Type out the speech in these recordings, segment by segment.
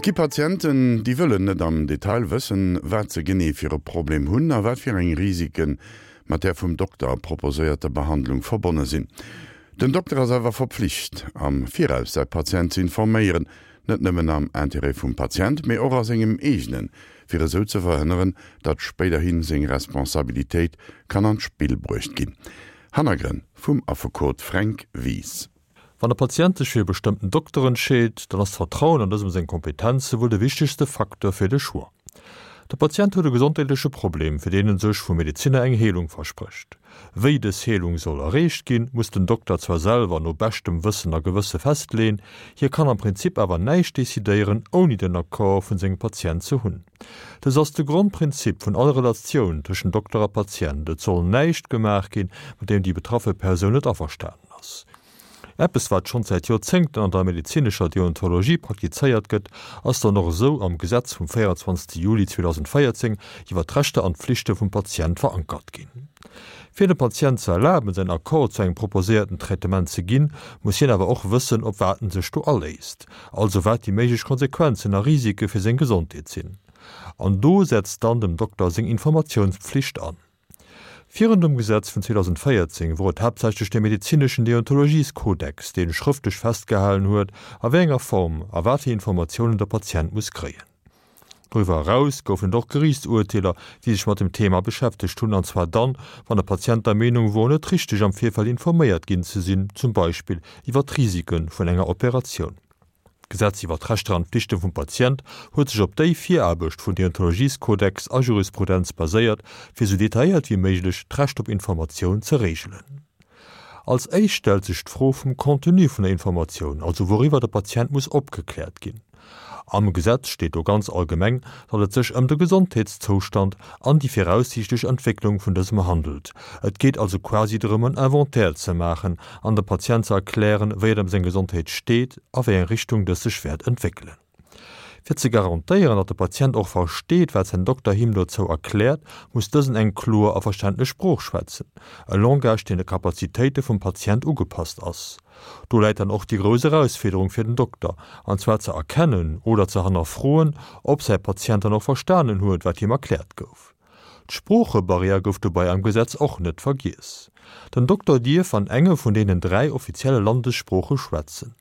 Et gi Patienten, déi wëllen net am Detail wëssen, wat se genee fir e Problem hunn a wat fir eng Risike mat där vum Dokter proposéierter Behandlung verbonne sinn. Den Dokter ass awer verpflicht, am Viraus säi Patient ze informéieren, net nëmmen am Interêt vum Patient, mee och a sengem eegenen, fir esou ze verhënneren, datt spéiderhi seng Responsabilitéit kann an d'Spill bruecht ginn. Hannergrënn vum Affekot Fränk Wies. Wann e Patient sech fir e bestëmmten Dokter entscheet, dann ass d'Vertrauen an dësem seng Kompetenze wuel de wichtegste Facteur fir de Choix. De Patient huet e gesondheetleche Problem, fir deen en sech vum Medezinner eng Heelung versprécht. Wéi dës Heelung soll erreecht ginn, muss den Dokter zwar selwer no beschtem Wëssen a Gewësse festleeën, hie kann am Prinzip awer näischt decidéieren, ouni den Accord vun sengem Patient ze hunn. Dës ass de Grondprinzip vun all Relatioun tëschent Dokter a Patient, et soll näischt gemaach ginn, mat deem déi betraffe Persoun net averstanen ass. Eppes wat schonns säit Joerzéngten an der medezinescher Deontologie praktizéiert gëtt, ass dann och esou am Gesetz vum 24 Juli 2014 iwwer d'Rechter an d'Pflichte vum Patient verankert ginn. Fir dem Patient ze erlaben säin Accord zu engem proposéierten Traitement ze ginn, muss hien awer och wëssen op wat en sech do aléisst, also wat déi méiglech Konsequenzen a Risike fir seng Gesondheet sinn. An do setzt dann dem Dokter seng Informatiounspflicht an. Virun dem Gesetz vun 2014 wor et haaptsächlech de medezineschen Deontologieskodex, dee schrëftlech festgehalen huet, a wéi enger Form a wat fir Informatiounen der Patient muss kréien. Doriwwer eraus goufen et och Geriichtsurteeler, déi sech mat dem Thema beschäftegt hunn, an zwar dann, wann de Patient der Meenung wor, net richteg am Virfeld informéiert ginn ze sinn, zum Beispill iwwer d'Risike vun enger Operatioun. D'Gesetz iwwer d'Rechter an d'Flichte vum Patient huet sech op déi Viraarbecht vun Deontologieskodex a Jurisprudenz baséiert, fir sou detailléiert wéi méiglech d'Recht op Informatioun ze reegelen. Als éischt stellt sech d'Fro vum Contenu vun der Informatioun, also wouriwwer de Patient muss opgekläert ginn. Am Gesetz steet do ganz allgemeng, datt et sech ëm de Gesondheetszoustand an déi viraussiichtlech Entwécklung vun dësem handelt. Et geet also quasi drëm en Inventaire ze maachen an dem Patient ze erklären, wéi et ëm seng Gesondheet steet a wéi eng Richtung dës sech wäert entwéckelen. Fir ze garantéieren, datt de Patient och versteet, wat säin Dokter him dozou erkläert, muss dësen eng kloer a verständlech Sprooch schwätzen, e Langage, deen de Kapazitéite vum Patient ugepasst ass. Do läit dann och déi grouss Erausfiederung fir den Dokter, an zwar ze erkennen oder ze hannerfroen, ob säi Patient dann och verstanen huet, wat him erkläert gouf. D'Sproochebarrière gouf dobei am Gesetz och net vergiess. Den Dokter dierf an enge vun deenen 3 offizielle Landessprooche schwätzen.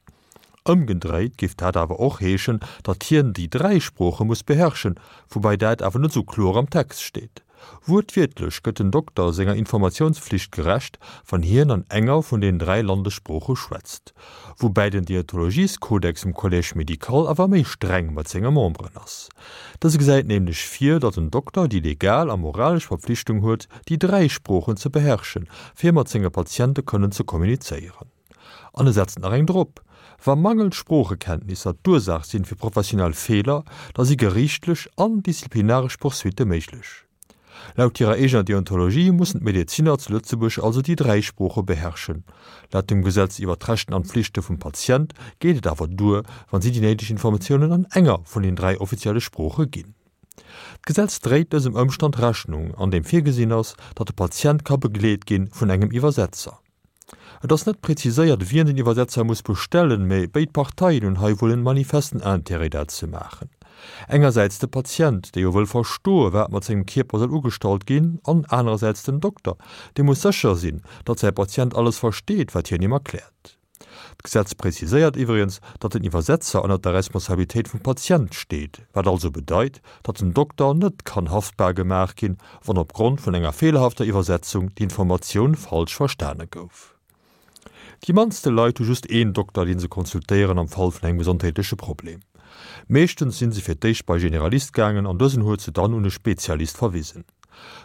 Ëmgedréit géif dat awer och heeschen, datt hien déi 3 Sprooche muss beherrschen, woubäi dat awer net esou kloer am Text steet. Wuertwiertlech gëtt den Dokter senger Informatiounspflicht gerecht, wann hien an enger vun den 3 Landessprooche schwätzt. Woubäi den Deontologieskodex um Collège médical awer méi streng mat senge Memberen ass. Dëse gesäit nämlech vir, datt en Dokter déi legal a moralesch Verpflichtung huet, déi 3 Sproochen ze beherrschen, fir mat senge Patiente kënnen ze kommunizéieren. An e setzt nach eng drop, Wa mangelnd Sproochekenntnisser d'Ursaach sinn fir professionell Feeler, da si geriichtlech an disziplinaresch Poursuitte méiglech. Laut hirer eegener Deontologie mussen d'Medezinner zu Lëtzebuerg also déi 3 Sprooche beherrschen. Laut dem Gesetz iwwer d'Rechten an d'Flichte vum Patient geet et awer duer, wann si déi néideg Informatiounen an enger vun den 3 offizielle Sprooche ginn. D'Gesetz dréit dësem Ëmstand Rechnung, an deem virgesinn ass, datt de Patient ka begleet gi vun engem Iwwersetzer. Et ass net präziséiert, wien den Iwwersetzer muss bestellen, mä béid Parteien hunn hei wuel en manifesten Intérêt dat ze maachen. Engersäits de Patient, dee jo wëll verstoe wat mat sengem Kierper soll ugestallt ginn, an anerersäits den Dokter, dee muss sécher sinn, datt säi Patient alles versteet, wat hien him erkläert. D'Gesetz präziséiert iwwregens, datt den Iwwersetzer ënnert der Responsabilitéit vum Patient steet, wat also bedeit, datt den Dokter net kann haftbar gemaach ginn, wann op Grond vun enger feelerhafter Iwwersetzung d'Informatioun falsch verstane gouf. Déi mannste Leit hu just een Dokter, dee se consultéieren am Fall vun engem gesondheetleche Problem. Meeschtens si se fir d'éischt bei Generalist gaangen an dësen huet se dann un e Spezialist verwisen.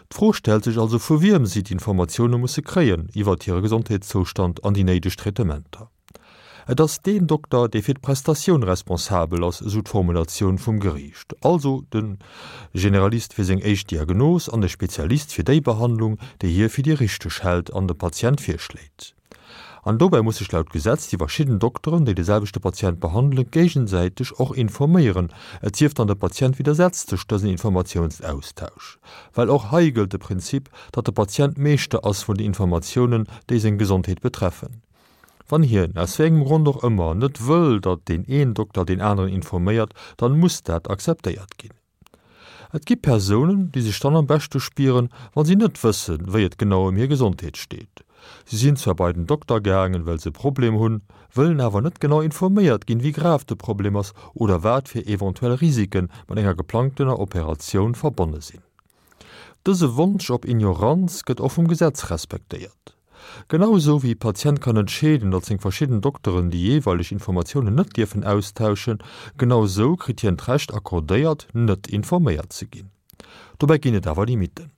D'Fro stellt sech also vu wiem si d'Informatioune musse kréien iwwert hire Gesondheetszoustand an déi néideg Traitementer. Et ass deen Dokter, dee fir d'Prestatioun responsabel ass, esou d'Formulatioun vum Geriicht. Also de Generalist fir seng éischt Diagnos an de Spezialist fir déi Behandlung, déi hie fir déi richteg hält an dem Patient virschléit. An dobäi muss sech laut Gesetz déi verschidden Dokteren, déi de selwechte Patient behandelen, géigesäiteg och informéieren, et sief dann de Patient widdersetzt sech dësen Informatiounsaustausch. Well och hei gëllt de Prinzip, datt de Patient Meeschter ass vun den Informatiounen, déi seng Gesondheet betreffen. Wann hien, aus wéi engem Grond och ëmmer, net wëll, datt deen een Dokter deen aneren informéiert, dann muss dat akzeptéiert ginn. Et gi Persounen, déi sech dann am beschte spieren, wa si net wëssen, wéi et genau ëm hir Gesondheet steet. Si sinn zwar bei den Dokter gaangen, well se e Problem hunn, wëllen awer net genau informéiert ginn, wéi grav de Problem ass oder wat fir eventuell Risike mat enger geplangtener Operatioun verbonne sinn. Dëse Wonsch op Ignoranz gëtt och vum Gesetz respektéiert. Genau esou wéi e Patient kann entscheeden, datt seng verschidden Dokteren déi jeeweileg Informatiounen net dierfen austauschen, genau esou kritt hien d'Recht accordéiert, net informéiert ze ginn. Dobäi ginn et awer Limitten.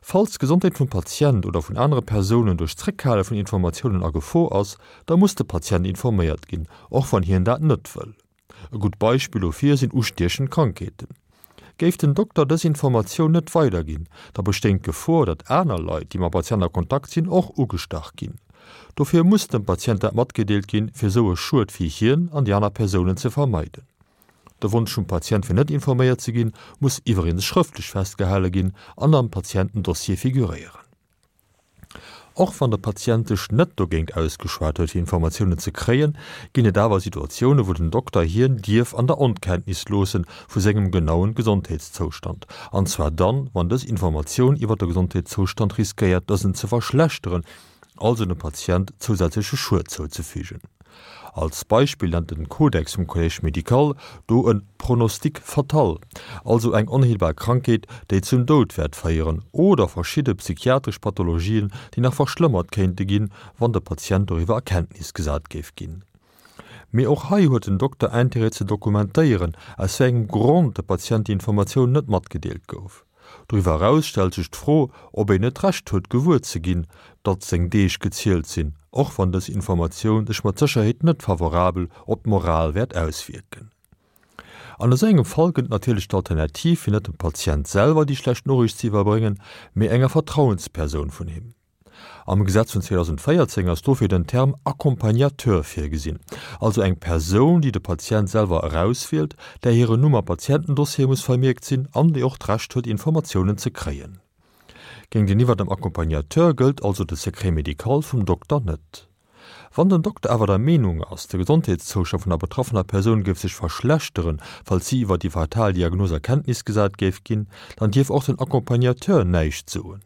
Falls d'Gesondheet vum Patient oder vun anere Persounen duerch d'Zréckhale vun Informatiounen a Gefor ass, da muss de Patient informéiert ginn, och wann hien dat net wëll. E gutt Beispill dofir sinn ustiechend Krankheeten. Géif den Dokter dës Informatioun net weiderginn, da bestéing d'Gefor, datt aner Leit, déi mam Patient a Kontakt sinn, och ugestach ginn. Dofir muss dem Patient dat matgedeelt ginn, fir esou e Schued fir hien an déi aner Persounen ze vermeiden. De Wonsch vum Patient fir net informéiert ze ginn, muss iwweregens schrëftlech festgehale ginn an am Patientendossier figuréieren. Och wann de Patient sech net dogéint ausgeschwat huet fir Informatiounen ze kréien, ginn et awer Situatioune wou den Dokter hien dierf an der Onkenntnis loosse vu sengem genauen Gesondheetszoustand, an zwar dann, wann dës Informatioun iwwer de Gesondheetszoustand riskéiert dësen ze verschlechteren, also dem Patient zousätzleche Schued zouzefügen. Als Beispill nennt den Kodex vum Collège médical do e Pronostic fatal, also eng onheelbar Krankheet, déi zum Doud wäert féieren, oder verschidde psychiatresch Pathologien, déi nach verschlëmmert kéinte ginn, wann de Patient doriwwer a Kenntnis gesat géif ginn. Mee och hei huet den Dokter Intérêt ze dokumentéieren, aus wéi engem Grond de Patient déi Informatioun net matgedeelt gouf. Doriwwer eraus stellt sech d'Fro, ob een net d'Recht huet gewuer ze ginn, datt seng Deeg gezielt sinn, och wann dës Informatioun sech mat Sécherheet net favorabel op d'Moral wäert auswierken. An esou engem Fall gëtt et natierlech d'Alternativ, fir net dem Patient selwer déi schlecht Noriicht ze iwwerbréngen, mee enger Vertrauenspersoun vun him. Am Gesetz vun 2014 ass dofir den Term Accompagnateur virgesinn, also eng Persoun, déi de Patient selwer erauswielt, där hiren Numm am Patientendossier muss vermierkt sinn an déi och d'Recht huet, Informatiounen ze kréien. Géinteniwwer dem Accompagnateur gëllt also de Secret médical vum Dokter net. Wann den Dokter awer der Meenung ass, de Gesondheetszoustand vun der betraffener Persoun géif sech verschlechteren, falls si iwwer déi fatal Diagnos a Kenntnis gesat géif ginn, dann dierf och den Accompagnateur näischt soen.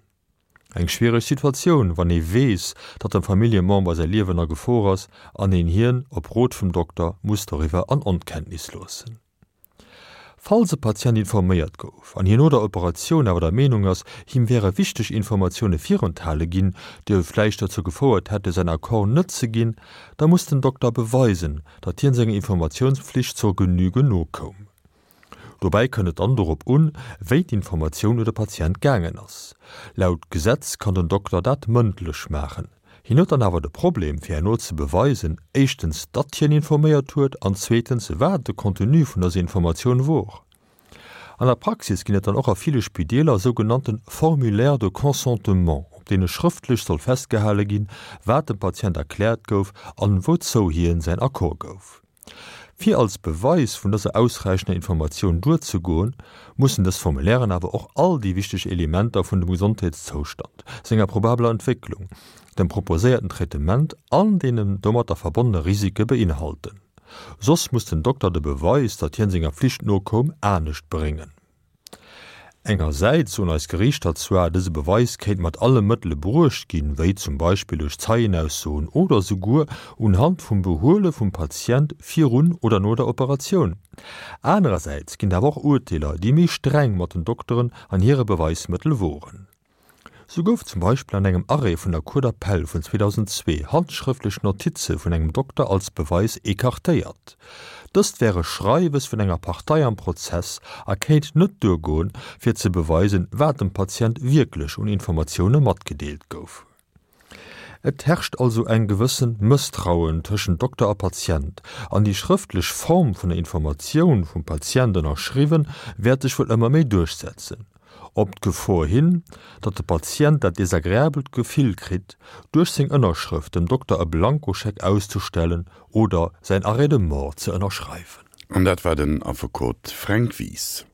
Eng schwiereg Situatioun, wann ee weess, datt dem Familljemember säi Liewen a Gefor ass an een hien, op Rot vum Dokter, muss doriwwer an Onkenntnis loossen. Falls e Patient informéiert gouf an hien no der Operatioun awer der Meenung ass, him wäre wichteg Informatioune virenthale ginn, déi vläicht dozou gefouert hätte säin Accord net ze ginn, da muss den Dokter beweisen, datt hien senger Informatiounspflicht zur Genüge nokoum. Dobäi kënnt et dann dorop un, wéi d'Informatioun u de Patient gaangen ass. Laut Gesetz kann den Dokter dat mëndlech maachen. Hien huet dann awer de Problem, fir herno ze beweisen, éischtens, datt hien informéiert huet an zweetens, wat de Contenu vun dëser Informatioun wor. An der Praxis ginn et dann och a ville Spideeler sougenannte Formulaires de consentement, op deene schrëftlech soll festgehale ginn, wat dem Patient erkläert gouf an wouzou hien säin Accord gouf. Fir als Beweis vun dëser ausräichender Informatioun duerzegoen, mussen dës Formulairen awer och all déi wichteg Elementer vun dem Gesondheetszoustand, senger probabeler Entwécklung, dem proposéierten Traitement an deenen domatter verbonnene Risike beinhalten. Soss muss den Dokter de Beweis, datt hien senger Pflicht nokoum, anescht bréngen. Engersäits soen eis Geriichter zwar, dëse Beweis kéint mat alle Mëttele bruecht ginn, wéi zum Beispill duerch Zeienaussoen oder souguer unhand vum Behuele vum Patient virun oder no der Operatioun. Anerersäits ginn et awer och Urteeler, déi méi streng mat den Dokteren an hire Beweismëttel woren. Sou gouf zum Beispill an engem Arrêt vun der Cour d'appel vun 2002 handschrëftlech Notize vun engem Dokter als Beweis ecartéiert. Dëst wär e Schreiwes vun enger Partei am Prozess a kéint net duergoen, fir ze beweisen, wat dem Patient wierklech un Informatioune matgedeelt gouf. Et herrscht also eng gewëssen Mësstrauen tëschent Dokter a Patient, an déi schrëftlech Form vun der Informatioun, vum Patient ënnerschriwwen, wäert sech wuel ëmmer méi duerchsetzen. Op d'Gefor hin, datt de Patient dat desagreabelt Gefill kritt, duerch seng Ënnerschrëft dem Dokter e Blankoscheck auszestellen oder säin Arrêt de mort ze ënnerschreiwen. An dat war den Affekot Fränk Wies.